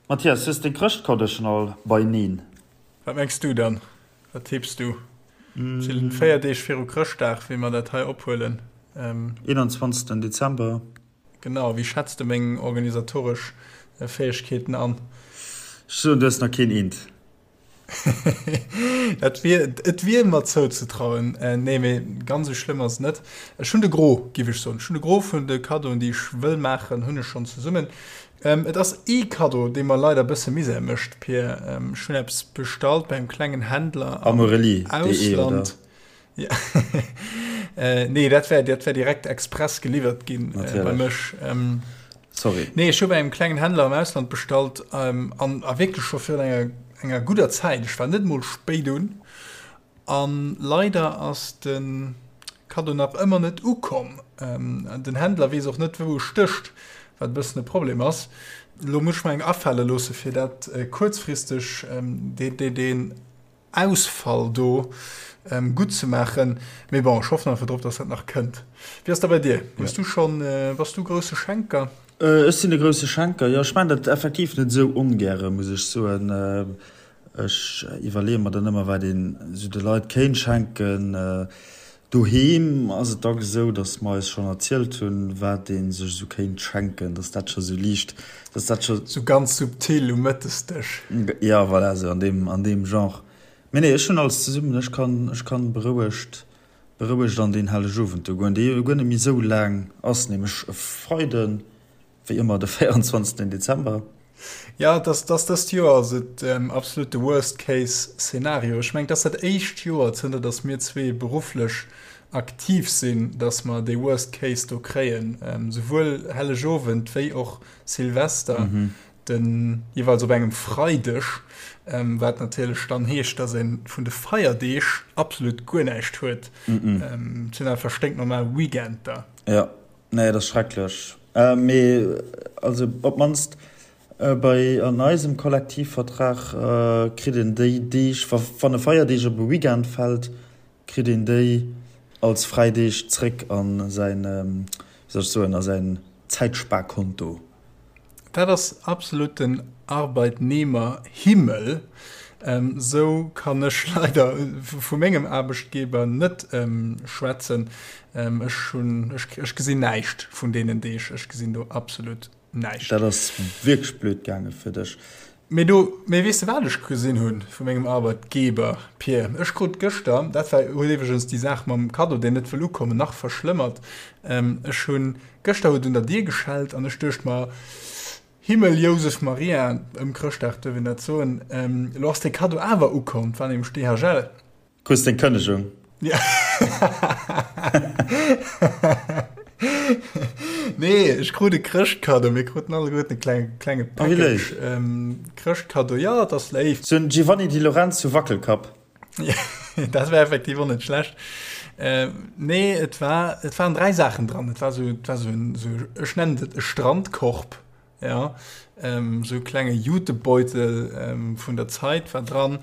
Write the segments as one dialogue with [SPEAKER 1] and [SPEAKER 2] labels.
[SPEAKER 1] Mathias, hues de Chrëschtkaddoe schonn all beineen?
[SPEAKER 2] Wat mengs du dann? Wat tipps du? Et sinn 4 Deeg viru Chrëschtdag, wéi mer dat hei ophuelen.
[SPEAKER 1] 21. Dezember.
[SPEAKER 2] Genau. Wéi schätz de meng organisatoresch Fäegkeeten an?
[SPEAKER 1] Ech soen, du hues nach keen eent.
[SPEAKER 2] Dat wier, et wier mer zouzetrauen. Nee, mee ganz esou schlëmm ass et net. Ech hunn de Gros, giff ech soen. Ech hunn de Gros vun de Kaddoen, déi ech wëll maachen, hunn ech schonn zesummen. Et ass ee Kaddo, dee mer leider e bësse Misär mécht, Pir. Ech hunn eppes bestallt bei engem klengen Händler am Ausland. Ja. Nee, dat wär, dat wär direkt express geliwwert ginn äh, bei mech. Ähm,
[SPEAKER 1] Sorry.
[SPEAKER 2] Nee, ech hu bei engem klengen Händler am Ausland bestallt ähm, an a wierklech scho virun enger, enger gudder Zäit. Ech war net mol spéit un. An leider ass de Kaddo nach ëmmer net ukomm. Ähm, den Händler weess och net, wou e stécht, wat e bëssen e Problem ass. Lo muss ech mer eng afale loosse fir dat äh, kuerzfristeg ähm, dee, dee, deen Ausfall do gutt ze maachen. Mee bon, ech hoffen einfach drop, dass dat nach kënnt. Wéi ass dat bei dir? Hues du schonn, bass du grousse Schenker?
[SPEAKER 1] Ech sinn e grousse Schenker, jo. Ech maachen dat effektiv net esou ongäre, muss ech soen. Ech iwwerleeë mer dann ëmmer, wat een esou de Leit kéint schenken. Doheem ass et dacks esou, datt mer eis schonn erzielt hunn, wat ee sech esou kéint schenken, datt dat scho sou liicht, datt dat scho.
[SPEAKER 2] Sou ganz subtil um Mëttesdësch.
[SPEAKER 1] Jo, voilà, esou an deem, an deem Genre. Mee nee, ech hunn alles zesummen, ech kann, ech kann berouegt, berouegt an deen Hellegowend do goen, dee jo guer net méi esou laang ass, nämlech e Freiden. Wéi ëmmer de 24 Dezember.
[SPEAKER 2] Ja, dass dass dëst Joer ass et absolut de Worst Case Szenario. Ech mengen, et ass dat éischt Joer zënter dass mir zwee berufflech aktiv sinn, dass mer dee Worst Case do kréien, souwuel Hellegowend wéi och Silvester, de jeeweils op engem Freideg, wat natierlech dann heescht, dass ee vun de Feierdeeg absolut guer näischt huet. Et sinn einfach sténknormal Weekender.
[SPEAKER 1] Jo. Nee, dat ass schrecklech. Mee also op d'mannst bei an eisem Kollektivvertrag kritt een déi Deeg, wa wann e Feierdeeg op e Weekend fält, kritt een déi als fräi Deeg zréck a säin, wéi soll ech soen, a säin Zäitsparkonto.
[SPEAKER 2] Dat ass absolut den Arbeitnehmerhimmel. Esou kann ech leider vu mengem Aarbechtgeber net schwätzen. Ech hunn, ech gesinn näischt vun deenen Deeg. Ech gesinn do absolut näischt.
[SPEAKER 1] Dat ass wierklech blöd gaange fir dech.
[SPEAKER 2] Mee do, mee weess de wat ech gesinn hunn vu mengem Arbeitgeber, Pir? Ech krut gëschter, dat war, huet iwwregens déi Saach mam Kaddo, deen net wëll ukommen, nach verschlëmmert, ech hunn, gëschter huet un der Dier geschellt an ech duecht mer, Himmel, Jousef, Maria, ëm Chrëschtdag duerf een dat soen, elo ass dee Kaddo awer ukomm, 't war nämlech DHL.
[SPEAKER 1] Krus deng Kënnegung?
[SPEAKER 2] Ja. Nee, ech krut e Chrëschtkaddo. Mir kruten alleguerten e klenge, klenge Package. Oh, ähm, Chrëschtkaddo, ja, dat ass léif.
[SPEAKER 1] Sou en Giovanni Di Lorenzo Wackelkapp.
[SPEAKER 2] Ja, dat wär effektiv och net schlecht. Äh, nee, et war, et waren dräi Saachen dran. Et war sou, et war sou en, sou, ech nennen et e Strandkorb. Ja, sou e klenge Jutebeutel vun der Zeit war dran.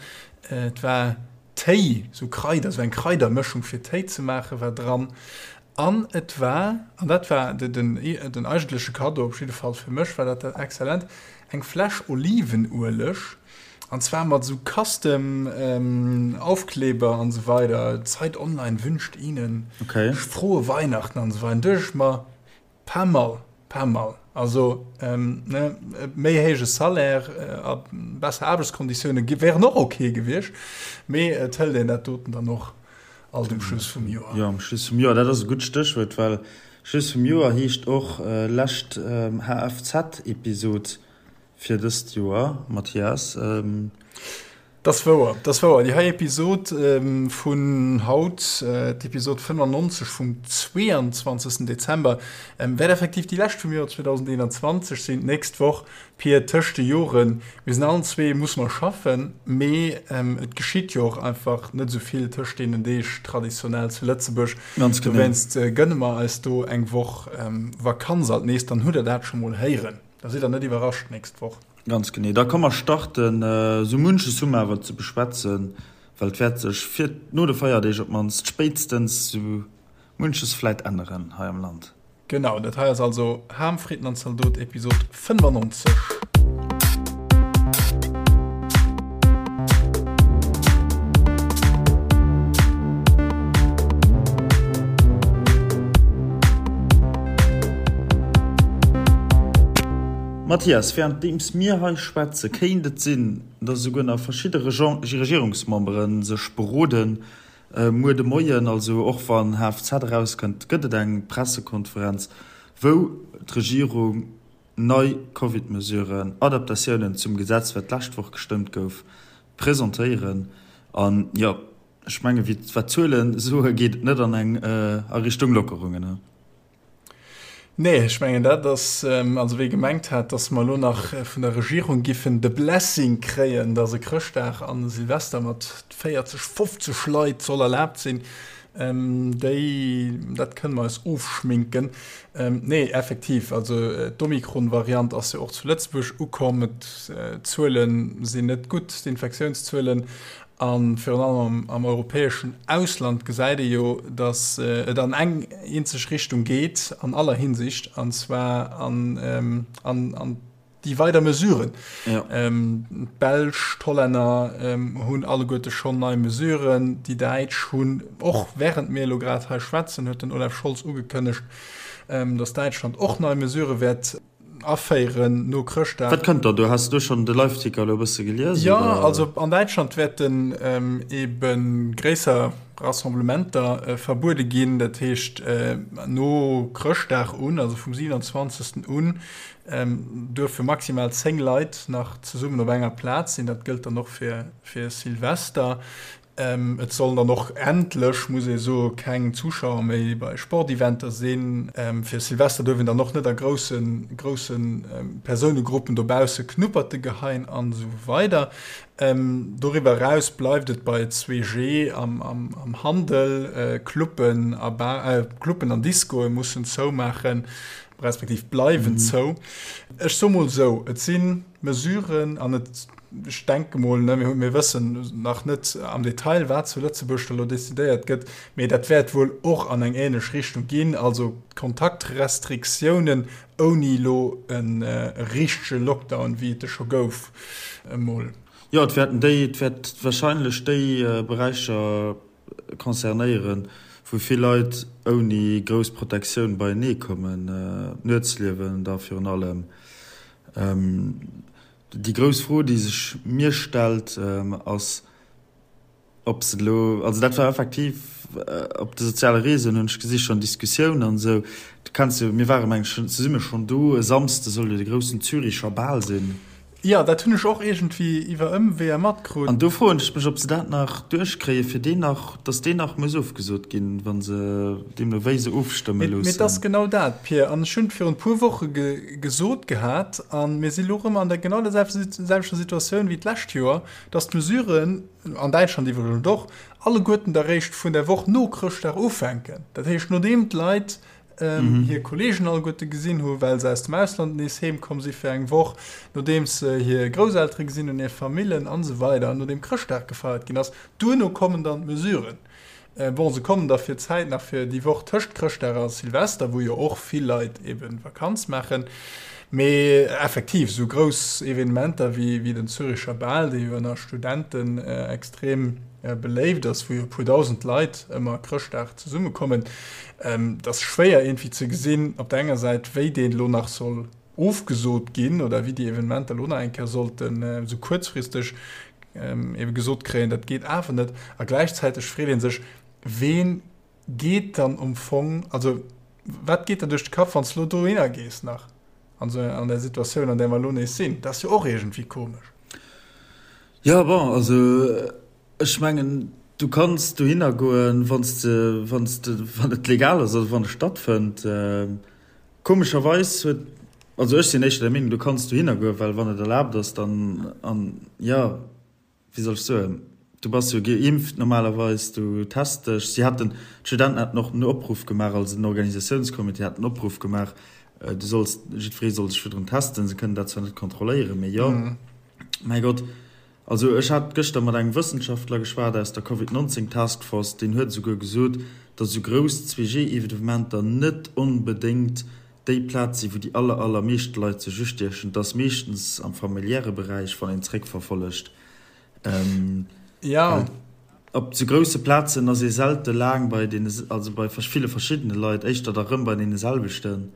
[SPEAKER 2] Et war Téi, sou Kraider, sou eng Kraidermëschung fir Téi ze maachen war dran. An et war, an dat war den den eigentleche Kaddo, op jidde Fall fir mech war dat exzellent, eng Fläsch Olivenueleg, an zwar mat sou Custom Aufkleber an sou weider, Zeit Online wünscht Ihnen frohe Weihnachten an sou weider. Duecht ech mer, Pas mal, pas mal. Also, ne, méi héije Salaire a besser Aarbechtskonditioune wären och ok gewiescht, mee et hëlt een dat doten dann och alt um Schluss vum Joer.
[SPEAKER 1] Jo, um Schluss vum Joer, dat ass e gutt Stéchwuert, well Schluss vum Joer heescht och lescht HFZ-Episod fir dëst Joer, Mathias.
[SPEAKER 2] Dat ass wouer, dat ass wouer. Déi hei Episod vun haut, d'Episod 95 vum 22. Dezember, wäert effektiv déi lescht vum Joer 2021 sinn. D'nächst Woch, Pir, tëscht de Joren, mir sinn allen zwee, musse mer schaffen, mee et geschitt jo och einfach net esou vill tëscht deenen Deeg traditionell zu Lëtzebuerg.
[SPEAKER 1] Ganz
[SPEAKER 2] genee. Dowéinst gënne mer eis do eng Woch Vakanz alt nees, dann hutt der dat scho mol héieren. Da sidd der net iwwerrascht d'nächst Woch.
[SPEAKER 1] Ganz genee. Da komm mer starten. Sou munches hu mer awer ze beschwätzen, well et wäert sech fir no de Feierdeeg op d'mannst spéitstens sou munches vläit änneren hei am Land.
[SPEAKER 2] Genau, dat hei ass also Ham, Fritten an Zaldot Episod 95.
[SPEAKER 1] Mathias, wärenddeems mir hei schwätze kéint et sinn, datt esouguer nach verschidde Regierungsmembere sech beroden. Muer de Moien, also och wann HFZ erauskënnt, gëtt et eng Pressekonferenz, wou d'Regierung nei Covid-Mesuren, Adaptatiounen zum Gesetz, wat d'lescht Woch gestëmmt gouf, presentéieren. An jo, ech menge wéi wat d'Zuele soe geet et net an eng a Richtung Lockerungen.
[SPEAKER 2] Nee, ech mengen dat ass, also wee gemengt hat, datt mer elo nach vun der Regierung giffen de Blessing kréien, datt e Chrëschtdag an e Silvester mat 40, 50 Leit soll erlaabt sinn, déi, dat kënne mer eis ofschminken. Nee, effektiv, also d'Omikron-Variant ass jo och zu Lëtzebuerg ukomm, d'Zuele sinn net gutt, d'Infektiounszuelen, A virun allem am europäeschen Ausland gesäit ee jo, datt et an eng eenzeg Richtung geet an aller Hinsicht, an zwar an déi weider Mesuren. D'Belsch, d'Hollänner hunn alleguerte schonn nei Mesuren. Déi Däitsch hunn och, während mir elo grad hei schwätzen, huet den Olaf Scholz ugekënnegt, datt Däitschland och nei Mesurë wäert aféieren no Chrëschtdag.
[SPEAKER 1] Wat kënnt da do? Has du schonn de Liveticker elo e bësse gelies?
[SPEAKER 2] Jo, also an Däitschland wäerten ebe gréisser Rassemblementer verbuede ginn. Dat heescht no Chrëschtdag un, also vum 27. un, duerfe maximal 10 Leit nach zesummen op enger Plaz sinn. Dat gëllt dann och fir Silvester. Et sollen dann och endlech, muss ee soen, keng Zuschauer méi bei Sporteventer sinn. Fir Silvester duerf een dann och net a grousse grousse Persounegruppen dobausse Knupperte geheien an esou weider. Doriwwer eraus bleift et bei 2G am Handel. Cluben a Bar, Cluben an Discoe mussen zoumaachen, respektiv bleiwen zou. Ech soe mol esou, et si Mesuren an et Ech denke mol, ne, mir, mir wëssen nach net am Detail, wat zu Lëtzebuerg da lo decidéiert gëtt, mee dat wäert wuel och an eng ähnlech Richtung ginn, also Kontaktrestriktiounen ouni elo e richtege Lockdown, wéi et e scho gouf emol.
[SPEAKER 1] Jo, et wäerten déi, et wäert wahrscheinlech déi Beräicher concernéieren, wou vill Leit ouni grouss Protektioun beienee kommen, d'Nuetsliewen da virun allem. Déi grouss Fro, déi sech mir stellt, ass, ob se elo, also dat war effektiv op de soziale Reseauen hunn ech gesi schonn Diskussiounen an esou. Du kenns jo, mir ware meng ech zesumme schonn do, e Samsde soll jo de groussen Züricher Bal sinn.
[SPEAKER 2] Jo, dat hunn ech och iergendwéi iwwer Ëmweeër matkrut.
[SPEAKER 1] An do froen ech mech, ob se dat nach duerchkréien, fir deen nach, dass deen nach muss ofgesot ginn, wa se deemno wéi se ofstëmme
[SPEAKER 2] loossen. Mee et ass genau dat, Pir, an ech hunn et virun e puer Woche gesot gehat, a mir si lo erëm an der genau der selwechter Situatioun wéi d'lescht Joer, dass d'Mesuren, an Däitschland iwwregens och, alleguerten da réischt vun der Woch no Chrëschtdag ufänken. Dat heescht, nodeem d'Leit hir Kolleegen alleguerte gesinn hu well se aus dem Ausland nees heem komm si fir eng Woch, nodeem se hir Grousseltere gesinn hunn, hir Famillen an esou weider, nodeem Chrëschtdag gefeiert ginn ass, duerno kommen dann d'Mesuren. Bon, se kommen da fir d'Zäit nach fir déi Woch tëscht Chrëschtdag a Silvester, wou jo och vill Leit ebe Vakanz maachen. Mee effektiv, esou grouss Evenementer wéi den Züricher Bal, dee jo ënner Studenten extrem beléift ass, wou jo e puer dausend Leit ëmmer Chrëschtdag zesummekommen, et ass schwéier iergendwéi ze gesinn, op der enger Säit, wéi deen elo nach soll ofgesot ginn oder wéi déi Evenementer elo nach eng Kéier sollten esou kuerzfristeg ebe gesot kréien, dat geet awer net. A gläichzäiteg freet ee sech, Wee geet dann am Fong, also wat geet der duerch de Kapp, wann s de elo dohinner gees nach an esou an där Situatioun, an där mer elo nees sinn? Dat ass jo och iergendwéi komesch.
[SPEAKER 1] Jo, bon, also ech mengen, du kanns dohinner goen, wann s de, wann s de, wann et legal ass, also wann et stattfënnt. Komescherweis huet, also ech sinn éischter der Meenung, du kanns dohinner goen, well wann et erlaabt ass, dann, an jo, wéi soll ech soen, du bass jo geimpft normalerweis, du test dech. Si haten, d'Studenten haten och en Opruff gemaach, also den Organisatiounscomité hat en Opruff gemaach, du solls, jiddweree soll sech virdrun testen. Se kënnen dat zwar net kontrolléieren, mee jo, mäi Gott. Also ech hat gëschter mat engem Wëssenschaftler geschwat aus der Covid 19 Task Force, deen huet esouguer gesot, datt esou grouss 2G-Evenementer net onbedéngt déi Plaz sinn, wou déi aller, aller meescht Leit sech ustiechen. Et ass meeschtens am familiäre Beräich, wann een zréckverfollegt.
[SPEAKER 2] Ja.
[SPEAKER 1] Well op sou grousse Plazen ass ee selte laang bei deene, also bei ville verschiddene Leit, éischter da rëm bei deene selwechten.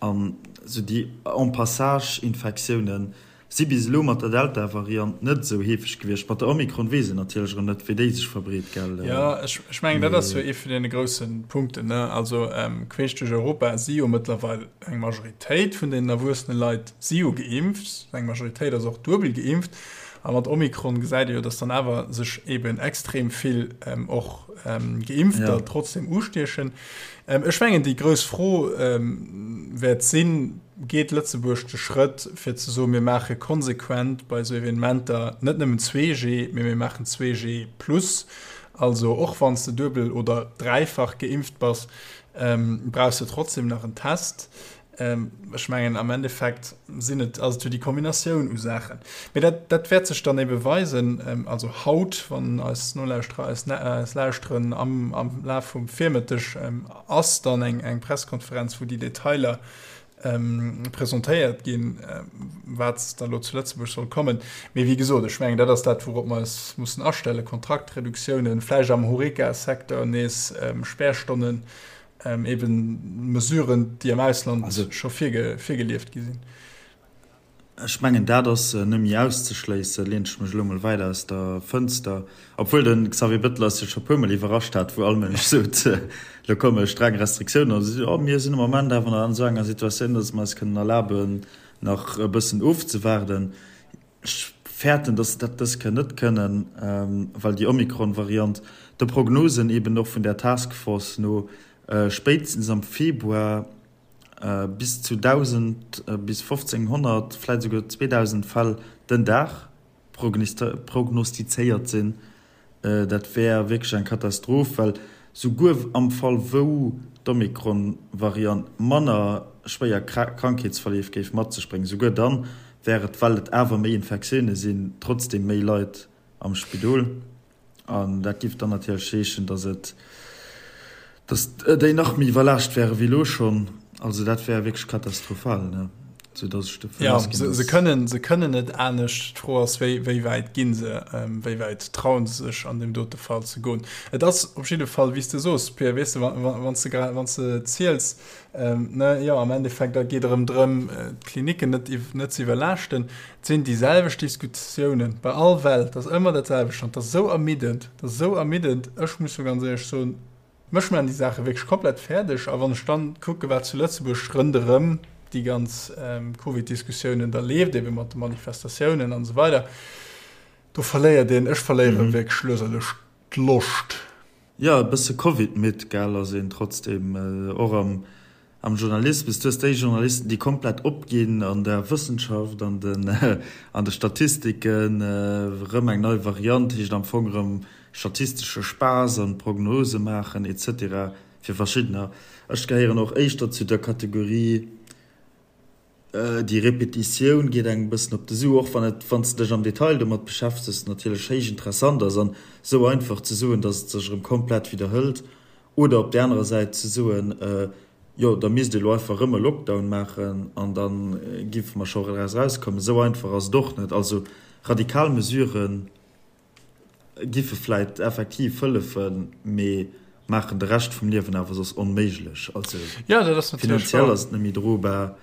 [SPEAKER 1] An esou déi en passage Infektiounen si bis elo mat der Delta-Variant net esou heefeg gewiescht. Mat der Omikron weess een natierlech erëm net, wéi déi sech verbreet, gell?
[SPEAKER 2] Jo, ech mengen, dat ass jo ee vun deene grousse Punkten, ne? Also queesch duerch Europa si jo mëttlerweil eng Majoritéit vun deenen erwuessene Leit si jo geimpft, eng Majoritéit ass och duebel geimpft. A mat Omikron gesäit ee jo, datt dann awer sech eeben extrem vill och Geimpfter trotzdem ustiechen. Ech mengen, déi grouss Fro wäert sinn, Geet Lëtzebuerg de Schrëtt, fir ze soen, mir maache konsequent bei esou Evenementer net nëmmen 2G, mee mir maachen 2G plus, also och wann s de duebel oder dräifach geimpft bass, brauchs de trotzdem nach en Test. Ech mengen, am Endeffekt sinn et, ass et jo déi Kombinatioun u Saachen. Mee dat, dat wäert sech dann ebe weisen, also haut, wann eis Nolauschterer eis, eis lauschteren, am, am Laf vum Virmëtteg ass dann eng, eng Presskonferenz, wou déi Detailer presentéiert ginn, wat da lo zu Lëtzebuerg soll kommen. Mee wéi gesot, ech mengen, dat ass dat, wourop mer eis mussen astellen, Kontraktreduktiounen, vläicht am Horeca-Secteur nees Spärstonnen, Eben Mesuren, déi am Ausland scho virgelieft gi sinn.
[SPEAKER 1] Ech mengen, dat ass net méi auszeschléissen, lehnt ech mech elo mol wäit aus der Fënster, obwuel de Xavier Bettel eis jo scho puermol iwwerrascht hat, wou all Mënsch sot, elo komme streng Restriktiounen, an si sot, oh, mir sinn am Moment awer nach an esou enger Situatioun, datt mer eis kënnen erlaben, nach e bëssen ofzewaarden. Ech fäerten, datt se dat dës Kéier net kënnen, well déi Omikron-Variant de Prognosen eben och vun där Taskforce no spéitstens am Februar bis zu 1.000 bis 1.500, vläit esouguer 2.000 Fäll den Dag prognostizéiert sinn. Dat wär wierklech eng Katastroph, well souguer am Fall wou d'Omikron-Variant manner schwéier Krankheetsverleef géif mat sech bréngen, souguer dann wär et, well et awer méi Infektioune sinn, trotzdeem méi Leit am Spidol. An dat géif dann natierlech heeschen, datt et, datt déi nach méi iwwerlaascht wäre wéi elo schonn. Also dat wär wierklech katastrophal, ne? Sou datt ech dovun
[SPEAKER 2] Ja, ausginn, se, se datt. kënnen, se kënnen net anescht. D'Fro ass, wéi, wéi wäit gi se, wéi wäit traue se sech an deem dote Fall ze goen. Et ass op jidde Fall, wéi s de soos, Pia, weess de, wa, wa, wann s de gra-, wann s de ziels, ne, jo, am Endeffekt, da geet erëm drëm, d'Klinicken net iw-, net ze iwwerlaaschten. Et sinn déi selwecht Diskussiounen bei all Well, et ass ëmmer dat selwecht an et ass esou ermiddend, et ass esou ermiddend. Ech muss jo ganz éierlech soen, Mech maachen déi Saache wierklech komplett fäerdeg. A wann ech dann kucke wat zu Lëtzebuerg ronderëm déi ganz Covid-Diskussiounen da leeft, ebe mat de Manifestatiounen an esou weider, do verléiert een, ech verléiere wierklech lues a lues d'Loscht.
[SPEAKER 1] Jo, e bësse Covid-midd, gell, ass een trotzdem och am Am Journalismus, du hues déi Journalisten, déi komplett opginn an der Wëssenschaft, an den, an de Statistiken, erëm eng nei Variant heescht am Fong erëm statistesche Spaass an Prognose maachen et cetera fir verschiddener. Ech gehéieren och éischter zu der Kategorie, déi Repetitioun geet engem e bëssen op de Su, och wann et, wann s de dech am Detail domat beschäftegs, natierlech héich interessant ass an esou einfach ze soen, datt et sech erëm komplett widderhëlt. Oder op där anerer Säit ze soen, jo da misst ee elo einfach erëm e Lockdown maachen an da géife mer scho eraus erauskommen. Esou einfach ass et och net. Also radikal Mesurë giffe vläit effektiv hëllefen, mee maachen de Rescht vum Liewen awer soss onméiglech. Also
[SPEAKER 2] Ja, dat ass natierlech
[SPEAKER 1] finanziell wahr. ass et net méi drobar.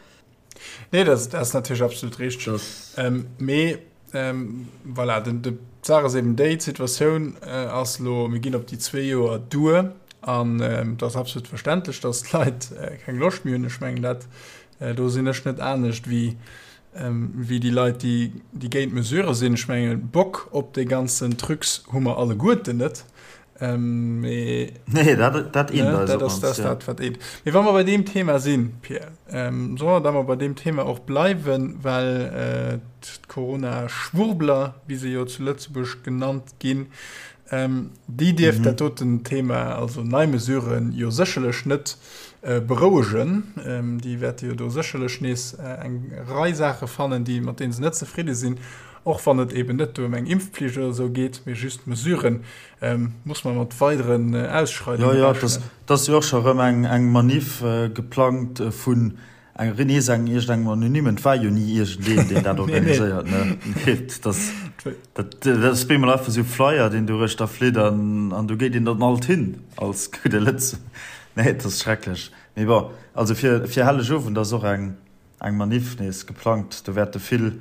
[SPEAKER 2] Nee, dat ass natierlech absolut richteg. Das ähm, mee ähm, voilà, den, de, d'Saach ass eben déi, d'Situatioun äh, ass lo, mir ginn op déi zwee Joer duer an ähm, dat ass absolut verständlech, dass d'Leit äh, keng Loscht méi hunn. Ech mengen dat äh, do sinn ech net anescht wéi ähm, wéi déi Leit, déi, déi géint Mesure sinn. Ech mengen Bock op dee ganzen Trucs hu mer alleguerten net. Ähm, mee,
[SPEAKER 1] nee, dat, dat eent
[SPEAKER 2] ne, dat ass, dat, ja. dat wat eent. Mee wa mer bei deem Thema sinn, Pierre, ähm, solle mer da mal bei deem Thema och bleiwen, well äh, d'Corona-Schwurbler, wéi se jo zu Lëtzebuerg genannt ginn, ähm, déi dierft mhm. dat doten Thema, also nei Mesuren, jo sécherlech net äh, berouegen. Ähm, déi wäerte jo do sécherlech nees äh, eng Rei Saache fannen, déi mat deenen se net zefridde sinn. Och wann et eben net ëm eng Impfpflicht oder esou geet, mee just Mesuren, muss mer mat weideren Ausschreidunge
[SPEAKER 1] rechnen. Jo, jo, et ass jo och scho erëm eng Manif geplangt vun nees eng iergendengem Anonymen. Et war jo ni iergendeen, deen dat organiséiert, ne? Dat ass, dat ass bemol einfach esou e Flyer, deen doruechter flitt an do geet een dann alt hin als gudde Lëtz. Nee, et ass schrecklech. Mee bon, also fir, fir Hellegowend ass och eng, eng Maniff nees geplangt. Do wäerte vill,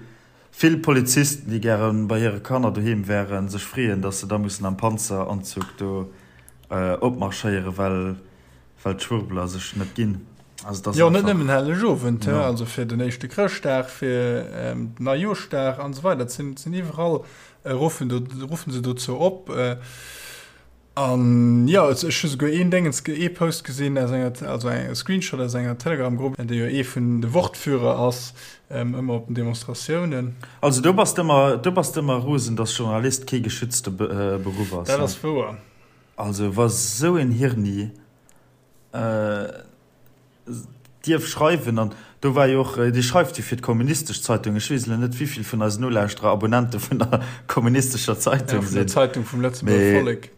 [SPEAKER 1] vill Polizisten, déi gäre bei hire Kanner doheem wären, sech freeën, datt se da mussen am Panzeranzug do opmarschéieren, well, well d'Schwurbler sech net ginn.
[SPEAKER 2] Also et ass Jo, net einfach, nëmmen Hellegowend, he, also fir den éischte Chrëschtdag, fir den Neijooschdag an esou weider. Et sinn, et sinn iwwerall, ruffen do, ruffen se dozou op. An jo, ech hu souguer een Déngens, ee Post gesinn aus enger, also e Screenshot aus enger Telegram-Grupp, dee jo ee vun de Wortführer ass, ëmmer op den Demonstratiounen.
[SPEAKER 1] Also do bass de ëmmer, do bass de ëmmer rosen, dass Journalist kee geschützte Beruff ass,
[SPEAKER 2] Dat ass wouer.
[SPEAKER 1] Also wa sou een Hirni dierf schreiwen, an do war jo och, dee schreift jo fir d'Kommunistesch Zeitung, ech weess elo net wivill vun eisen Nolauschterer Abonnente vun der Kommunistescher Zeitung
[SPEAKER 2] sinn. Ja, vun der Zeitung vum Lëtzebuerger Vollek.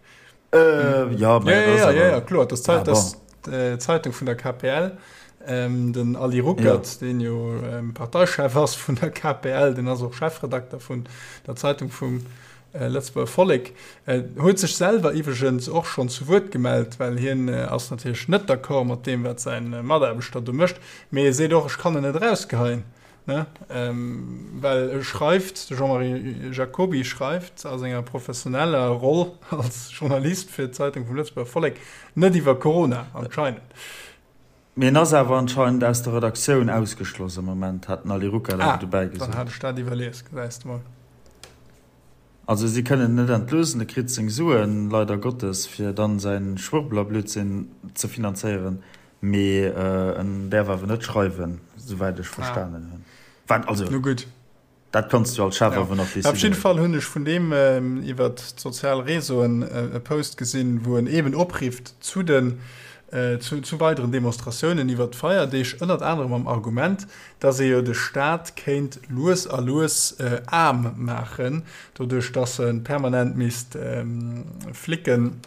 [SPEAKER 2] Jo, mä dat ass awer. Jo, jo, kloer, dat ass d'Zeitung vun der KPL. Den Ali Ruckert, deen jo Parteichef ass vun der KPL, deen ass och Chefredakter vun der Zeitung vum Lëtzebuerger Vollek huet sech selwer iwwregens och schonn zu Wuert gemellt, well hien ass natierlech net d'accord mat deem, wat säi Mataarbechter do mécht. Mee e seet och, ech kann en net erausgeheien, ne, well e schreift, de Jean-Marie Jacoby schreift a senger professioneller Roll als Journalist fir d'Zeitung vum Lëtzebuerger Vollek net iwwer Corona anscheinend.
[SPEAKER 1] Mee en ass awer anscheinend aus der Redaktioun ausgeschloss am Moment, hat den Ali Ruckert awer dobäi
[SPEAKER 2] gesot. Ah, dann hat ech dat iwwerlies, gesäis de mol.
[SPEAKER 1] Also si kënnen en net entloossen, e kritt seng Suen, leider Gottes, fir dann säin Schwurblerblödsinn ze finanzéieren, mee en däerf awer net schreiwen, souwäit ech verstanen hunn. Wat, also.
[SPEAKER 2] Nu gutt.
[SPEAKER 1] Dat kanns du als Chef
[SPEAKER 2] awer nach decidéieren. Op jidde Fall hunn ech vun deem iwwer d'sozial Réseauen e Post gesinn, wou en eeben oprifft zu den zu weideren Demonstratiounen iwwer d'Feierdeeg, ënnert anerem mam Argument, dass ee jo de Staat kéint lues a lues aarm maachen, doduerch dass e permanent misst Flicken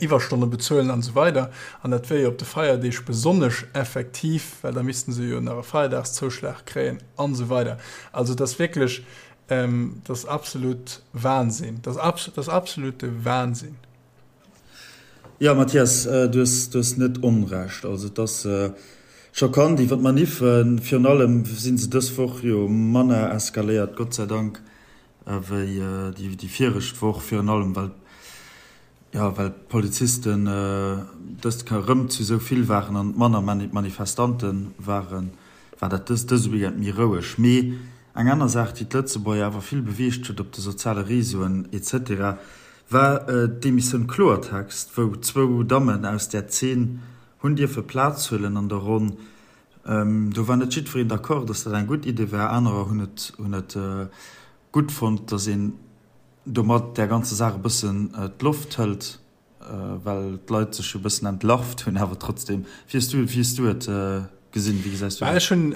[SPEAKER 2] Iwwerstonne bezuelen an esou weider. An dat wier jo op de Feierdeeg besonnesch effektiv, well da missten se jo nach e Feierdagszouschlag kréien an esou weider. Also et ass wierklech, et ass absolut Wahnsinn, et ass, et ass absolute Wahnsinn.
[SPEAKER 1] Jo, Mathias, du hues, du hues net Onrecht. Also et ass schockant iwwer d'Maniffen. Virun allem si se dës Woch jo manner eskaléiert, Gott sei Dank, wéi déi viregt Woch, virun allem well, jo, well d'Polizisten dëst Kéier erëm zu esou vill waren an et manner Manifestante waren, war dat dës dëse Weekend méi roueg. Mee eng aner Saach, déi d'Lëtzebuerger awer vill beweegt huet op de soziale Réseauen et cetera, war d'Emissioun Kloertext, wou zwou Dammen aus där Zeen hunn dierfe Plaz huelen an der Ronn. Do war net jiddwereen d'accord, datt dat eng gutt Idee war. Anerer hunn et hunn et gutt fonnt, datt een domat där ganzer Saach e bëssen d'Loft hëlt, well d'Leit sech jo e bëssen entlarvt hunn. Awer trotzdem, wéi hues du, wéi hues du et gesinn? Wéi gesäis du
[SPEAKER 2] dat? Ech hunn,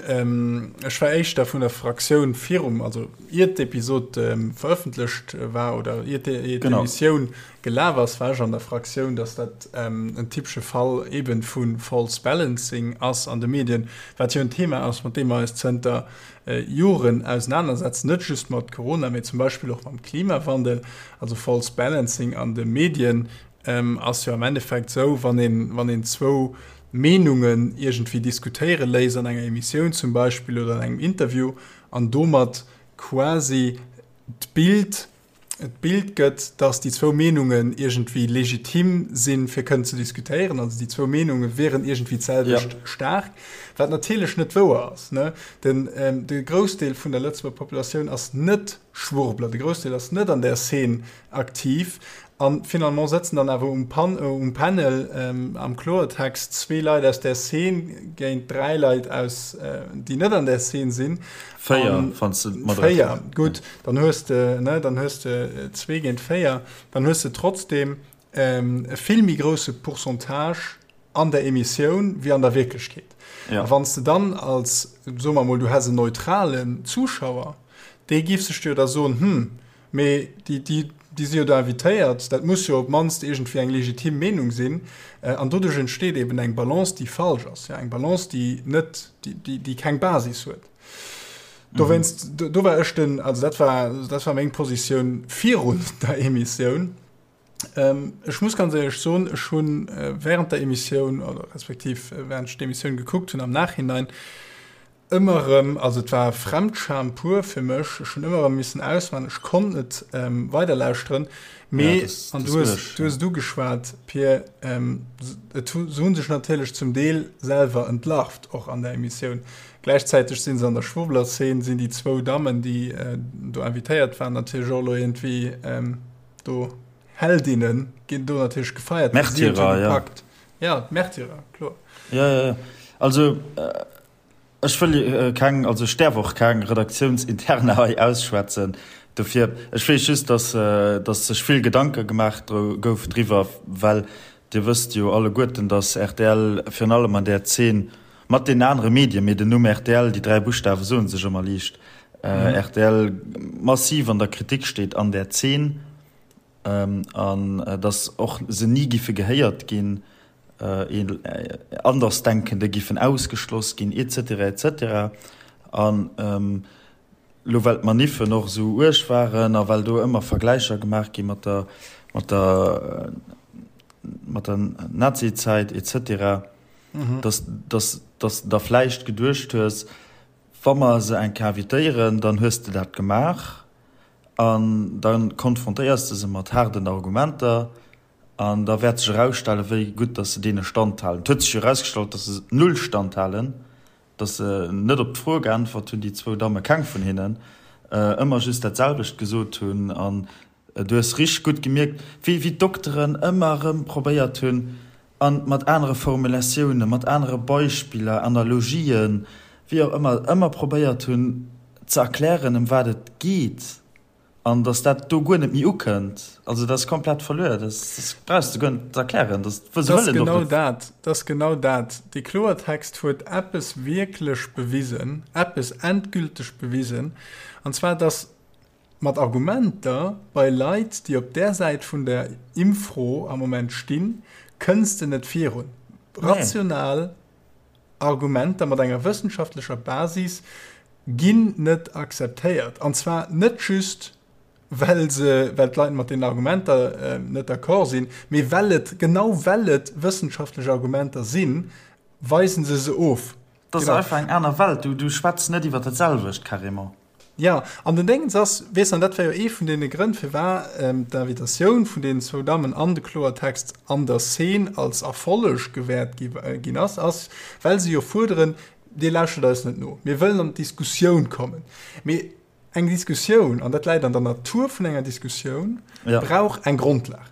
[SPEAKER 2] ech war éischter vun der Fraktioun virum, also iert d'Episod verëffentlecht war oder iert d'Emissioun gelaf ass, war ech an der Fraktioun, datt dat en typesche Fall eebe vu False Balancing ass an de Medien, wat jo en Thema ass, mat deem mer eis zënter Joren ausenanersetzen, net just mat Corona, mee zum Beispill och mam Klimawandel. Also False Balancing an de Medien ass jo am Endeffekt esou, wann een, wann een zwou Meenungen iergendwéi diskutéiere léisst an enger Emissioun zum Beispill oder an engem Interview an domat quasi d'Bild, d'Bild gëtt, datt déi zwou Meenungen iergendwéi legitim sinn, fir kënnen ze diskutéieren, also déi zwou Meenunge wieren iergendwéi d'selwecht staark, wat natierlech net wouer ass. Den, de Groussdeel vun der Lëtzebuerger Populatioun ass net Schwurbler, de Groussdeel ass net an där Szene aktiv An finalement sëtzen dann awer um Pan um Panel am Kloertext zwee Leit aus där Szene géint dräi Leit aus déi net an där Szene sinn.
[SPEAKER 1] Véier, wann s de
[SPEAKER 2] mat Véier, gutt, dann hues de, ne, dann hues de zwee géint véier. Dann hues de trotzdem e vill méi grousse Pourcentage an der Emissioun wéi an der Wierklechkeet. Ja. A wann s de dann als, soe mer emol, du häss en neutralen Zuschauer, dee giff sech jo da soen, hm, Mee déi, déi, déi si jo do invitéiert, dat muss jo op d'mannst iergendwéi eng legitim Meenung sinn. An doduerch entsteet eben eng Balance, déi falsch ass, jo, eng Balance, déi net, déi, déi, déi keng Basis huet. Dowéinst, do, do war ech den, also dat war, dat war meng Positioun virun der Emissioun. Ech muss ganz éierlech soen, ech hu während der Emissioun, oder respektiv während ech d'Emissioun gekuckt hunn am Nachhinein, ëmmer erëm, also et war Fremdscham pur fir mech, ech hunn ëmmer erëm missen ausmachen, ech konnt net weiderlauschteren. Mee, an du hues, du hues et ugeschwat, Pir, et hu, se hu sech natierlech zum Deel selwer entlarvt, och an der Emissioun. Gläichzäiteg si se an der Schwurbler-Szene, sinn déi zwou Dammen, déi do invitéiert waren, natierlech och elo iergendwéi, Do Heldinnen ginn do natierlech gefeiert.
[SPEAKER 1] Märtyrer,
[SPEAKER 2] ja. Ja, d'Märtyrer, kloer.
[SPEAKER 1] Ja, ja, ja. Also, ech wëll keng, also ech däerf och keng Redaktiounsinterna hei ausschwätzen. Dofir, ech weess just, dass, dass sech vill Gedanke gemaach gouf driwwer, well Dir wësst jo alleguerten, dass rtl virun allem an där Zeen mat deenen anere Medien, mee den Numm rtl, déi 3 Buschtawe soe sech ëmmer liicht, rtl massiv an der Kritik steet an där Zeen an dass och se ni giffe gehéiert ginn, Andersdenkende giffen ausgeschloss ginn, etc. Etc. An elo well d'Maniffen och esou uerg waren a well do ëmmer Vergläicher gemaach gi mat der, mat der, mat der Nazizäit, etc. Dass, dass, dass de da vläicht geduecht hues, Wa mer se eng Kéier invitéieren, dann hues de dat gemaach an da konfrontéiers de se mat haarden Argumenter an da wäert sech erausstellen, wéi gutt dass se deene standhalen. Et huet sech jo erausgestallt, dass se null standhalen, dass se net op d'Froe geäntwert hunn, déi zwou Damme, keng vun hinnen, ëmmer just dat selwecht gesot hunn an Du hues richteg gutt gemierkt, wéi wéi d'Dokteren ëmmer erëm probéiert hunn, a mat anere Formulatiounen, mat anere Beispiller, Analogien, wéi och ëmmer, ëmmer probéiert hunn ze erklären, ëm wat et geet, an datt dat do guer net méi ukënnt. Also dat ass komplett verluer, dat brauchs de guer net ze erklären, dat se
[SPEAKER 2] wëllen och net. Dat ass genau dat, dat ass genau dat. Dee Kloertext huet eppes wierklech bewisen, eppes endgülteg bewisen, an zwar datt Mat Argumenter bei Leit, déi op där Säit vun der Impffro am Moment stinn, kënns de net virun. Rational Argumenter mat enger wëssenschaftlecher Basis ginn net akzeptéiert. An zwar net just, well se, well d'Leit mat deenen Argumenter net d'accord sinn, mee well et, genau well et wëssenschaftlech Argumenter sinn, weisen se se of.
[SPEAKER 1] Dat ass einfach eng aner Welt. Du schwätz net iwwer dat selwecht carrément.
[SPEAKER 2] Jo, an den Déngens ass, weess, an dat war jo ee vun deene Grënn, firwat d'Invitatioun vun deenen zwou Dammen an de Kloertext an der Szene als Erfolleg gewäert ginn ass, ass, well se jo fuerderen, Dir lauschtert eis net no, mir wëllen an d'Diskussioun kommen. Mee eng Diskussioun, an dat läit an der Natur vun enger Diskussioun, brauch eng Grondlag.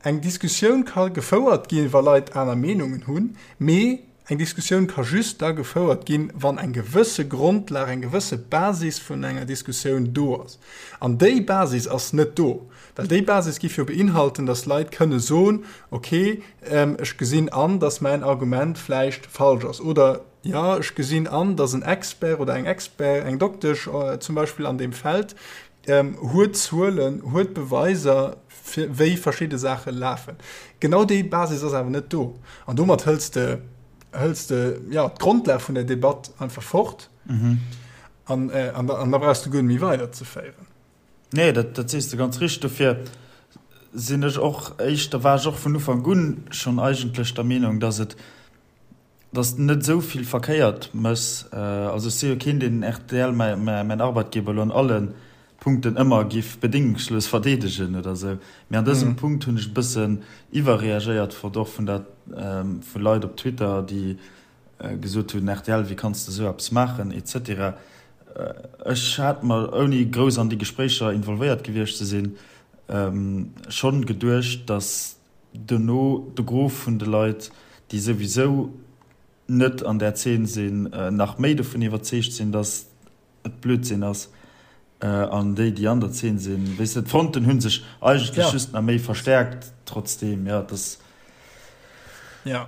[SPEAKER 2] Eng Diskussioun ka gefouert ginn, wa Leit aner Meenungen hunn, mee Eng Diskussioun ka just da gefouert ginn, wann eng gewësse Grondlag, eng gewësse Basis vun enger Diskussioun do ass. An déi Basis ass net do, well déi Basis giff jo beinhalten, dass Leit kënne soen, okay, ech gesinn an, dass mäin Argument vläicht falsch ass, oder jo, ech gesinn an, dass en Expert oder eng Expert, eng Doktesch zum Beispill an deem Feld huet Zuelen, huet Beweiser, fir wéi verschidde Saache lafen. Genau déi Basis ass awer net do. An domat hëls de, hëls de ja, d'Grondlag vun der Debatt einfach fort. Mhm. An, äh, an, an da brauchst du guer net méi weiderzeféieren.
[SPEAKER 1] Nee, dat, dat sees de ganz richteg. Dofir sinn ech och éischter, war ech och vun Ufank un schonn eigentlech der Meenung, dass et, dass de net esou vill verkéiert mëss. Also ech si jo keen deen rtl, mäin Arbeitgeber, elo an alle Punkten ëmmer giff bedingungslos verdeedegen oder esou, mee an dësem Punkt hunn ech e bëssen iwwerreagéiert fonnt, och vun der vu Leit op Twitter, déi gesot hunn, rtl, wéi kanns de esou eppes maachen et cetera. Ech hat mer, ouni grouss an déi Gespréicher involvéiert gewiescht ze sinn, schonn geduecht, dass dono de Gros vun de Leit, déi souwisou net an där Zeen sinn, nach méi dovun iwwerzeegt sinn, datt et Blödsinn ass. An déi, déi an der Zeen sinn, weess de, d'Fronten hu sech eigentlech just nach méi verstäerkt trotzdeem. Jo, et ass.
[SPEAKER 2] Jo,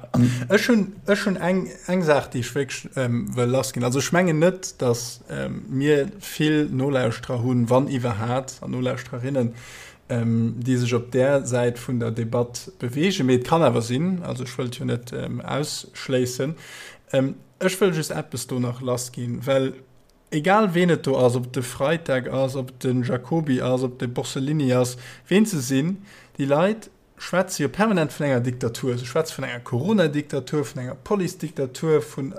[SPEAKER 2] ech hunn, ech hunn eng, eng Saach, déi ech wierklech wëll lassginn. Also ech mengen net, datt mir vill Nolauschterer hunn, wann iwwerhat, an Nolauschtererinnen, déi sech op där Säit vun der Debatt beweegen. Mee et kann awer sinn, also ech wëll et jo net ausschléissen. Ech wëll just eppes do nach lassginn, well egal ween et do ass, ob et de Freitag ass, ob et de Jacoby ass, ob et de Borsellini ass, ween se sinn, déi Leit. schwätze jo permanent vun enger Diktatur. Se schwätze vun enger Corona-Diktatur, vun enger Police-Diktatur, vun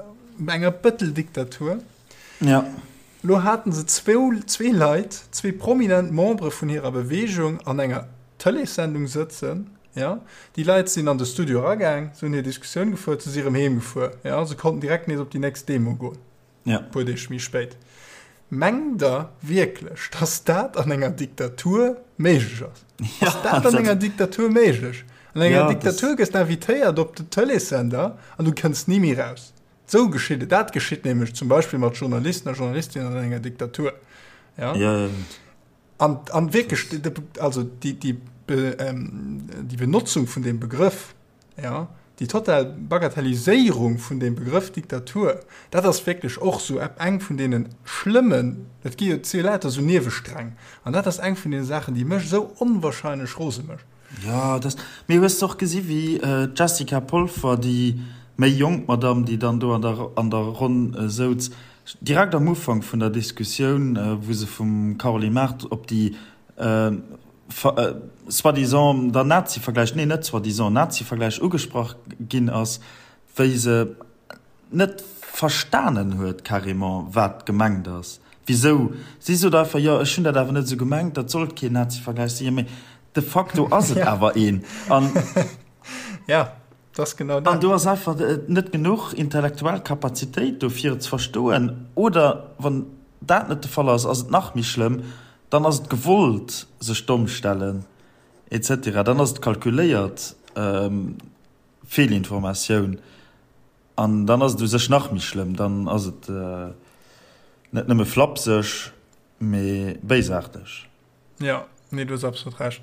[SPEAKER 2] enger Bëttel-Diktatur.
[SPEAKER 1] Ja.
[SPEAKER 2] Lo haten se zwou, zwee Leit, zwee prominent Membere vun hirer Beweegung an enger Tëleessendung sëtzen. Ja. Déi Leit sinn an de Studio eragaang, se hunn hir Diskussioun gefuert, se si erëm heem gefuer. Ja. Se konnten direkt nees op déi nächst Demo goen.
[SPEAKER 1] Ja.
[SPEAKER 2] E puer Deeg méi spéit. Mengt Der wierklech, dass dat an enger Diktatur méiglech ass?
[SPEAKER 1] Ja,
[SPEAKER 2] ass dat an enger Diktatur méiglech? An enger
[SPEAKER 1] ja,
[SPEAKER 2] Diktatur gëss de invitéiert op den Tëleessender an du kënns ni méi raus. Sou geschitt et. Dat geschitt nämlech zum Beispill mat Journalisten a Journalistinnen an enger Diktatur.
[SPEAKER 1] Ja. Ja, ja.
[SPEAKER 2] An, an wierklech, also déi, déi, déi Benotzung vun deem Begrëff, Ja, déi total Bagatelliséierung vun deem Begrëff Diktatur, dat ass wierklech och esou eng vun deene schlëmmen, et gi jo et si jo lauter esou Niewesträng, an dat ass eng vun deene Saachen, déi mech esou onwahrscheinlech rose mécht.
[SPEAKER 1] Jo, dat, mee hues de och gesi wéi d'Jessica Polfer, déi méi jonk Madamm, déi dann do an der an der Ronn souz, direkt am Ufank vun der Diskussioun, wou se vum Caroline Mart op déi soi-disant der Nazi-Vergläich, nee net soi-disant, Nazi-Vergläich ugesprach ginn ass, wéi se net verstanen huet carrément, wat gemengt ass, wisou. Si sot einfach, jo ech hunn dat awer net esou gemengt, dat sollt keen Nazi-Vergläich sinn. Jo mee de facto ass et awer een. An
[SPEAKER 2] Ja, dat ass genau
[SPEAKER 1] dat. An do ass einfach net genuch intellektuell Kapazitéit do fir et ze verstoen. Oder wann dat net de Fall ass, ass et nach méi schlëmm, Dann ass et gewollt sech domm stellen etc. Dann ass et kalkuléiert Feelinformatioun an dann ass et u sech nach méi schlëmm. Dann ass et net nëmme flapseg, mee béisaarteg.
[SPEAKER 2] Jo, nee, du hues absolut Recht.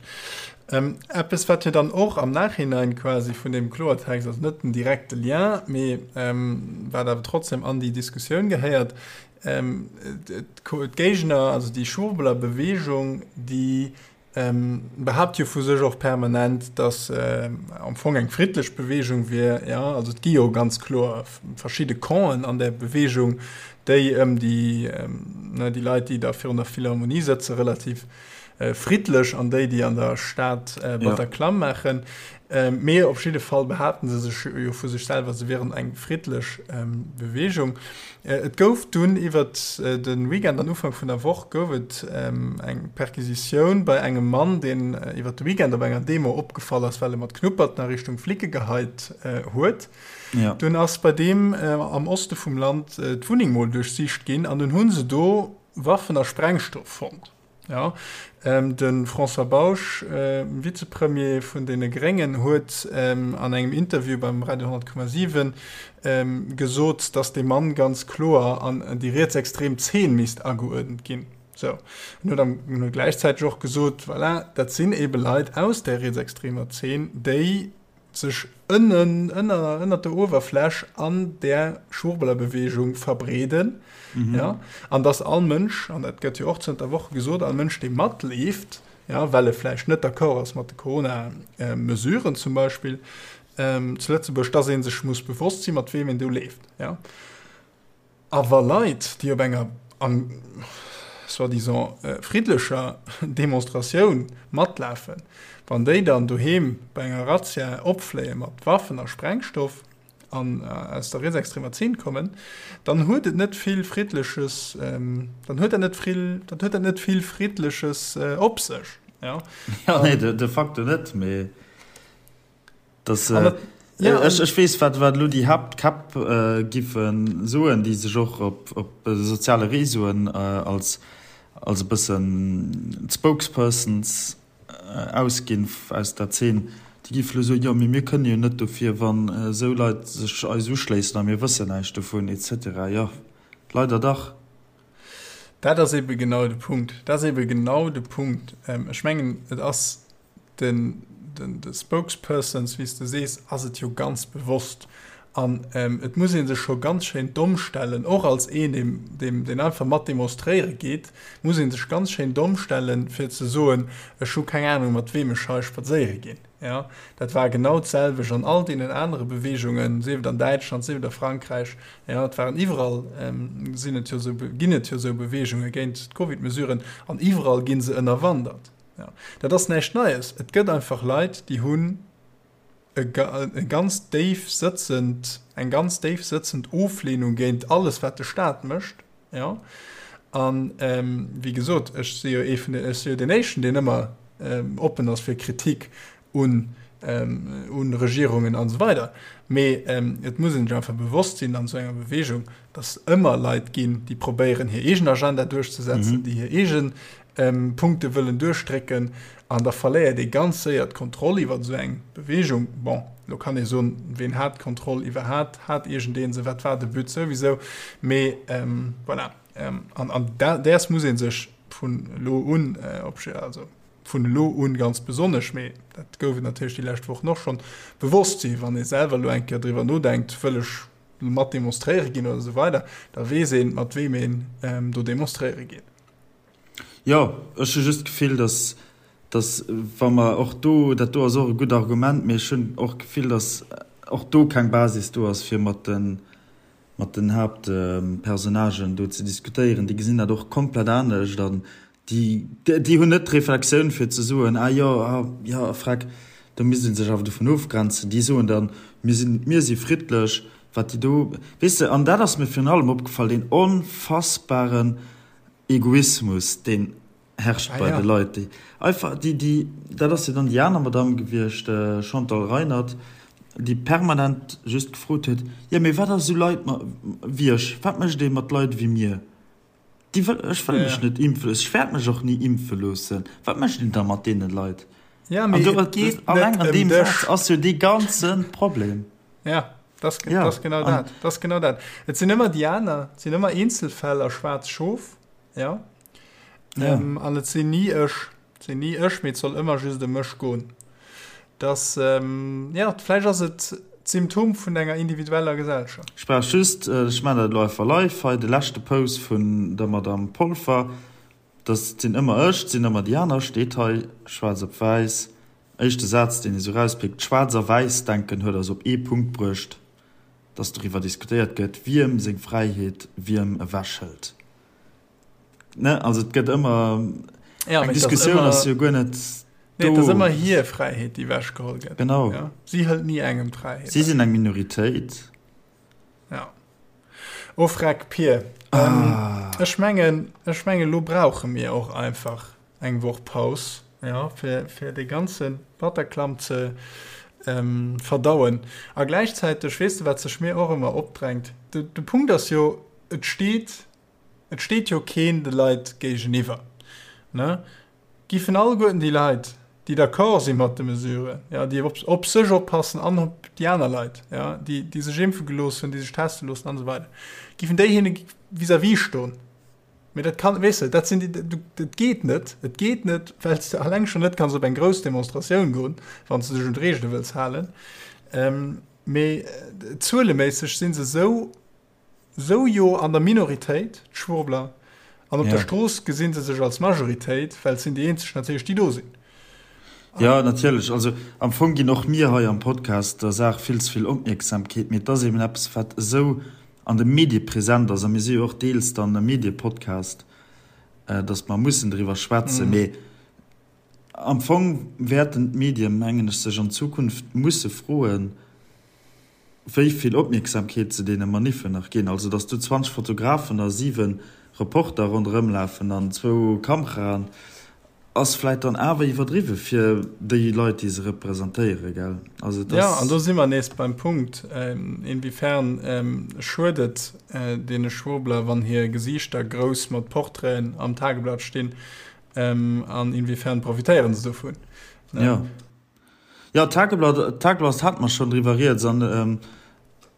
[SPEAKER 2] Eppes, wat jo dann och am Nachhinein quasi vun deem Kloertext, also net den direkte Lien, mee wat awer trotzdem an déi Diskussioun gehéiert, D'Géigner, also déi Schwurbeler Beweegung, déi behaapt jo vu sech och permanent, datt se am Fong eng friddlech Beweegung wier. Jo, also et gi jo ganz kloer verschidde Campen an där Beweegung, déi ëm déi, ne, déi Leit, déi da virun der Philharmonie sëtze relativ friddlech an déi, déi an der Stad Bataclan maachen. Mee op jidde Fall behaapten se sech jo vu sech selwer, se wieren eng friddlech Beweegung. Et gouf dunn iwwert de Weekend an Ufank vun der Woch gouf et eng Perquisitioun bei engem Mann, deen iwwert de Weekend op enger Demo opgefall ass, well e mat Knupperten a Richtung Flicke geheit huet. Dunn ass bei deem am Oste vum Land d'Wunneng mol duerchsicht ginn an dunn hu se do Waffen a Sprengstoff fonnt. Jo, de François Bausch, Vizepremier vun deene Gréngen, huet an engem Interview beim Radio 10,7 gesot, datt dee Mann ganz kloer an déi rietsextrem Zeen misst ageuerdent ginn. Sou. En huet am en huet gläichzäiteg och gesot, voilà, dat sinn eebe Leit aus där rietsextremer Zeen, déi sech ënnen, ënner, ënnert der Uewerfläch an där Schwurblerbewegung verbreeden, mhm. ja, an dass all Mënsch, an dat gëtt jo och zënter Woche gesot, all Mënsch, dee matleeft, ja, well e vläicht net d'accord ass mat de Corona-Mesuren zum Beispill ähm, zu Lëtzebuerg, dass ee sech muss bewosst sinn, mat wem een do leeft, ja. A wa Leit, déi op enger soi-disant friddlecher Demonstratioun matlafen, wann déi dann doheem bei enger Razzia opfléie mat Waffen a Sprengstoff an aus der rietsextremer Zeen kommen, dann huet et net vill Friddleches, dann huet dat net vill, dann huet dat net vill Friddleches op sech.
[SPEAKER 1] Jo, nee, de facto net, mee. Das, äh, ja, ech, ech weess, wat, wat elo déi Haaptkäpp äh, giffen soen, déi sech och op, op soziale Réseauen äh, als, als e bëssen Spokespersons äh, ausginn aus der Zeen, déi giffen elo soen, jo, mee mir kënne jo net dofir, wann esou Leit sech eis uschléissen a mir wëssen näischt dovun, et cetera. Jo, leider dach.
[SPEAKER 2] Dat ass ebe genau de Punkt. Dat ass ebe genau de Punkt. Ähm, ech mengen, et ass den, den, de Spokespersons, wéi s de sees, ass et jo ganz bewosst. An ähm, et muss ee sech scho ganz schéin domm stellen, och als een, deem, deem, deen einfach mat demonstréiere geet, muss ee sech ganz schéin domm stellen, fir ze soen, ech hu keng Ahnung, mat weem ech hei spadséiere ginn. Ja, dat war genau d'selwecht an all deenen anere Beweegungen, sief et an Däitschland, sief et a Frankräich. Ja, et waren iwwerall, ähm, sinn et jo esou, ginn et jo esou Beweegunge géint d'Covid-Mesuren an iwwerall gi se ënnerwandert. Ja. Dat ass näischt Neies. Et gëtt einfach Leit, déi hunn e, e ganz déif sëtzend, eng ganz déif sëtzend Oflehnung géint alles, wat de Staat mécht. Ja. An ähm, wéi gesot, ech si jo ee vun den, ech si jo deen Éischten, deen ëmmer ähm, oppen ass fir Kritik un, ähm, un Regierungen an esou weider. Mee ähm, et muss een sech einfach bewosst sinn an esou enger Bewegung, dass ëmmer Leit ginn, déi probéieren, hir eegen Agenda duerchzesetzen, mhm. déi hir eegen ähm, Punkte wëllen duerchdrécken an da verléiert ee ganz séier d'Kontroll iwwer esou eng Bewegung. Bon, lo kann ee soen, ween hat d'Kontroll iwwerhat, hat iergendee se, wat war de But souwisou, mee ähm, voilà. Ähm, an an däers muss ee sech vun elo un, äh, op, also vun elo un ganz besonnesch, mee dat gouf et natierlech déi lescht Wochen och schonn, bewosst sinn, wann ee selwer elo eng Kéier driwwer nodenkt, wëll ech mat demonstréiere ginn oder esou weider, da weess een, mat weem een ähm, do demonstréiere geet.
[SPEAKER 1] Jo, ech hu just d'Gefill, dass, dass wa mer och do, dat do ass och e gutt Argument, mee ech hunn och d'Gefill, dass och do keng Basis do ass, fir mat de, mat den Haaptpersonnagen do ze diskutéieren. Déi gesinn dat och komplett anescht an déi, déi hunn net d'Reflexioun fir ze soen, ah jo, ah jo, freck, do misst ee sech awer dovun ofgrenzen. Déi soen dann, mir sinn, mir si friddlech, wat déi do, weess de, an dat ass mir virun allem opgefall, deen onfassbaren Egoismus, deen herrscht bei de Leit, déi einfach, déi, déi, dat ass jo dann déi aner Madamm gewiescht, Chantal Reinert, déi permanent just gefrot huet, jo mee wat ass esou Leit wéi ech, wat mécht ee mat Leit ewéi mir, déi wëll, ech wëll mech net impfe loossen, ech wäert mech och ni impfe loossen, wat mécht een da mat deene Leit?
[SPEAKER 2] Ja, mee et geet net
[SPEAKER 1] ëm dech. An deem Saz ass jo dee ganze Problem.
[SPEAKER 2] Ja. Das, ja. das genau dat. Das genau dat. Et sinn ëmmer déi aner, et sinn ëmmer Eenzelfäll a schwaarz Schof. Ja. ja. Ähm, an et sinn ni ech, et sinn ni ech, mee et soll ëmmer just ëm mech goen. Das, ähm, ja, vläicht ass et d'Symptom vun enger individueller Gesellschaft.
[SPEAKER 1] Ech brauch just, äh, ech maachen dat elo einfach live hei, de leschte Post vun der Madame Polfer, dass et sinn ëmmer ech, et sinn ëmmer déi aner, steet hei schwaarz op wäiss. Éischte Saz, deen ee sou erauspickt, Schwaarz a Wäiss-Denken huet eis op ee Punkt bruecht, dass doriwwer diskutéiert gëtt, wiem seng Fräiheet wiem ewechhëlt. Ne? Also et gëtt ëmmer
[SPEAKER 2] ja,
[SPEAKER 1] eng Diskussioun ass jo guer net
[SPEAKER 2] do. Nee, et ass ëmmer hir Fräiheet, déi ewechgeholl gëtt.
[SPEAKER 1] Genau.
[SPEAKER 2] Ja? Si hëlt ni engem d'Fräiheet.
[SPEAKER 1] Si sinn eng Minoritéit.
[SPEAKER 2] Ja. Oh Freck, Pir. Ah. Ähm, ech mengen, ech mengen, lo brauche mir och einfach eng Woch Paus, ja, fir, fir dee ganze Batterklamm ze ähm, verdauen. A gläichzäiteg, weess de, wat sech mir och ëmmer opdrängt? De, de Punkt ass jo, et steet, et steet jo keen de Leit géigeniwwer, ne? Giffen alleguerten déi Leit, déi d'accord si mat de Mesuren, ja, déi op, op sech oppassen an op déi aner Leit, ja, déi, déi sech impfe gelooss hunn, déi sech teste loossen an esou weider, giffen déi hinne vis-à-vis stoen, Mee dat kann, weess de, dat sinn déi, du, et geet net, et geet net, well s de alleng schonn net kanns op eng grouss Demonstratioun goen, wann s de dech un d'Reegele wëlls halen. Mee zueleméisseg si se esou, esou jo an der Minoritéit, d'Schwurbler, an op der Strooss gesi se sech als Majoritéit, well et sinn déi eenzeg natierlech, déi do sinn.
[SPEAKER 1] Jo, natierlech. Also am Fong ginn och mir hei am Podcast der Saach vill ze vill Opmierksamkeet, mee et ass eben eppes, wat esou an de Medie present ass, a mir si jo och deels dann e Mediepodcast, datt mer mussen driwwer schwätzen. Mee am Fong wäerten d'Medie, mengen ech, sech an Zukunft musse froen, wéi vill Opmierksamkeet se deene Maniffen nach ginn. Also datt do 20 Fotografen a 7 Reporter ronderëmlafen an zwou Kameraen, ass vläit dann awer iwwerdriwwe fir déi Leit, déi se representéieren, gell?
[SPEAKER 2] Also et ass. Jo, an do si mer nees beim Punkt, Inwiefern schued et deene Schwurbler, wann hir Gesiichter grouss mat Portraiten am Tageblatt stinn, an inwiefern profitéiere se dovun?
[SPEAKER 1] Jo. Jo, d'Tageblatt, d'Tageblatt hate mer schonn driwwer rieds an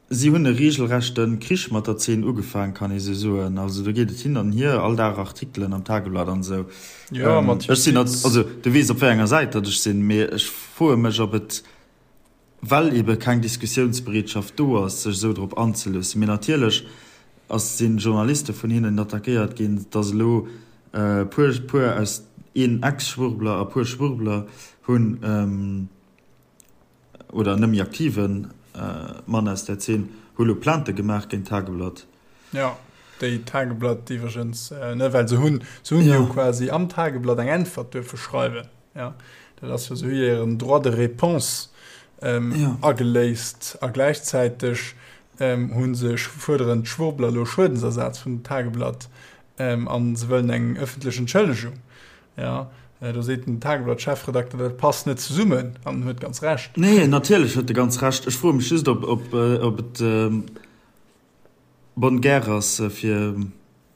[SPEAKER 1] si hunn e regelrechte Krich mat der Zeen ugefaang, kann ee sou soen. Also do geet et hin an hier, all Dag Artikelen am Tageblatt an esou.
[SPEAKER 2] Jo, mat
[SPEAKER 1] Ech sinn, also du weess op wéi enger Säit datt ech sinn, mee ech froe mech, ob et, well ebe keng Diskussiounsbereetschaft do ass, sech esou drop anzeloossen. Mee natierlech ass, sinn Journaliste vun hinnen attackéiert ginn, datt elo puer, puer aus, een Ex-Schwurbler a puer Schwurbler hunn, oder net méi aktive Mann aus där Zeen, hu lo Plainte gemaach géint d'Tageblatt.
[SPEAKER 2] Jo. Déi Tageblatt iwwregens, ne, well se hunn, se hunn jo quasi am Tageblatt eng Äntwert duerfe schreiwen. Ja, dat ass jo, se hu jo hiren Droit de réponse ageléist a gläichzäiteg hu se, fuerderen d'Schwurbler elo Schuedensersaz vun dem Tageblatt a se wëllen eng ëffentlech Entschëllegung. Ja, do seet den Tageblatt-Chefredakter, dat passt net zesummen an en huet ganz Recht.
[SPEAKER 1] Nee, natierlech huet e ganz Recht. Ech froe mech just, ob, ob, ob et bonne guerre ass, fir,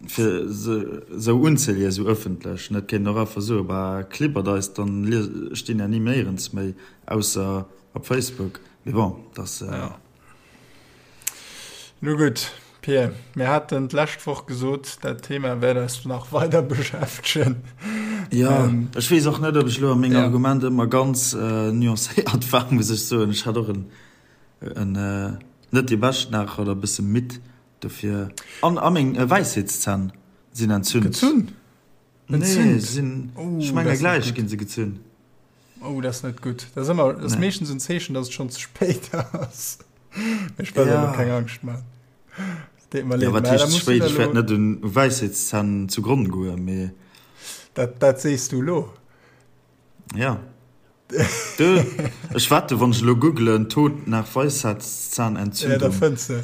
[SPEAKER 1] fir se esou unzeliesen, esou ëffentlech. Et kéint een och einfach soen, Bah, klibbert eis, dann stinn är Nimm néierens méi, ausser op Facebook. Mee bon, dat ass.
[SPEAKER 2] Ja. Nu gutt, Pir, mir haten d'lescht Woch gesot, dat Thema wäert eis nach weider beschäftegen.
[SPEAKER 1] Jo, ech weess och net, ob ech elo a mengem Argument ëmmer ganz nuancéiert war, muss ech soen. Ech hat och en net déi beschten Dag oder e bësse midd dofir. An a meng Wäisheetszänn sinn entzünt.
[SPEAKER 2] Gezunn?
[SPEAKER 1] Nee, sinn, ech menge gläich ginn se gezunn.
[SPEAKER 2] Oh, dat ass net gutt. Dat ass ëmmer, dat ass meeschtens en Zeechen, dass et schonn ze spéit ass. Ech wëll der keng Angscht maachen.
[SPEAKER 1] Deet mer leed. Ja, wat heescht ze spéit? Ech wäert net un Wäisheetszänn zu Gronn goen, mee.
[SPEAKER 2] Dat, dat sees du elo.
[SPEAKER 1] Ja. Du, ech wette, wann ech elo googlen, Tod nach Weisheitszahnentzündung.
[SPEAKER 2] Ja, da fënns de.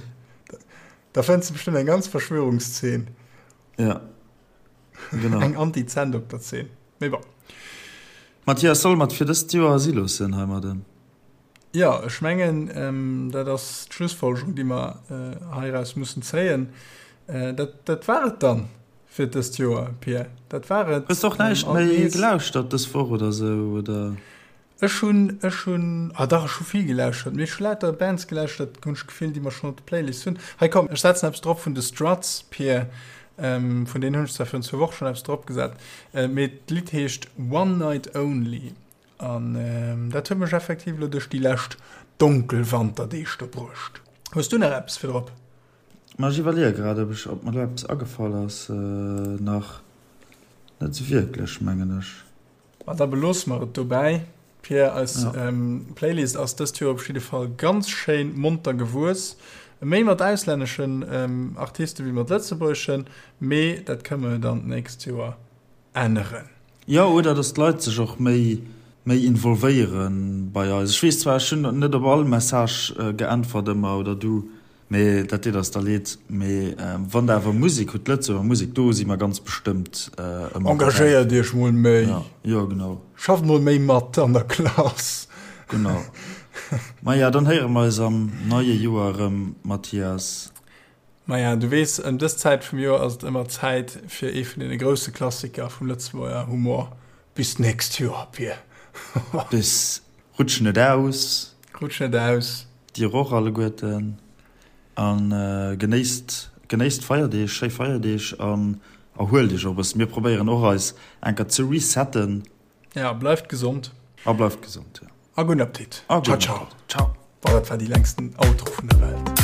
[SPEAKER 2] Da fënns de bestëmmt eng ganz Verschwörungszeen.
[SPEAKER 1] Ja.
[SPEAKER 2] Genau. Eng Anti-Zänndokter-Zeen. Mee bon.
[SPEAKER 1] Mathias, solle mer et fir dëst Joer si loossen heimadden?
[SPEAKER 2] Jo, ech mengen, dat ass d'Schlussfolgerung, déi mer heiraus mussen zéien. Dat, dat war et dann fir dëst Joer, Pia. Dat war et.
[SPEAKER 1] Hues de och näischt méi gelauschtert dës Woch oder sou, oder?
[SPEAKER 2] Ech hunn, ech hunn, ah dach, ech hu vill gelauschtert, mee ech hu lauter Bands gelauschtert, hunn ech d'Gefill, déi mer schonn op der Playlist hunn. Hei komm, ech setzen eppes drop vun de Struts, Pir, vun deenen hunn ech zwar virun zwou Woche schonn eppes drop gesat, mee d'Lidd heescht One Night Only an dat huet mech effektiv elo duerch déi lescht donkel Wanterdeeg do bruecht. Hues du nach eppes fir drop?
[SPEAKER 1] Ma ech iwwerleeë grad, ob ech, ob mer do eppes agefall ass nach. Net esou wierklech, mengen ech.
[SPEAKER 2] Ma da beloosse mer et dobäi, Pierre. Eis Playlist ass dëst Joer op jidde Fall ganz schéin monter gewuess. Méi mat auslänneschen Artiste wéi mat lëtzebuergeschen, mee dat kënne mer jo dann d'nächst Joer änneren.
[SPEAKER 1] Jo, oder dass d'Leit sech och méi méi involvéiere bei eis. Ech weess zwar, ech hunn net op all Message geäntwert ëmmer, oder du, Mee dat deet eis da leed. Mee wann der awer Musek hutt, Lëtzebuerger Musek, do si mer ganz bestëmmt
[SPEAKER 2] ëmmer dobäi. Engagéiert iech mol méi.
[SPEAKER 1] Ja, jo genau.
[SPEAKER 2] Schafft mol méi mat an der Klass.
[SPEAKER 1] Genau. Maja, dann héiere mer eis am neie Joer erëm, Mathias.
[SPEAKER 2] Maja, du weess, ëm dës Zäit vum Joer ass et ëmmer Zäit fir ee vun deene grousse Klassiker vum Lëtzebuerger Humor. Bis d'nächst Joer, Pir.
[SPEAKER 1] Bis. Rutsch net aus.
[SPEAKER 2] Rutsch net aus.
[SPEAKER 1] Dir och alleguerten a genéisst genéisst d'Feierdeeg, schéi Feierdeeg an erhuelt iech och e bëssen. Mir probéieren och eis enker ze resetten.
[SPEAKER 2] Ja, bleift gesond.
[SPEAKER 1] A bleift gesond, jo.
[SPEAKER 2] A gudden Appetit.
[SPEAKER 1] A gudden Appetit. Ciao.
[SPEAKER 2] Boah, dat war déi längsten Outro vun der Welt.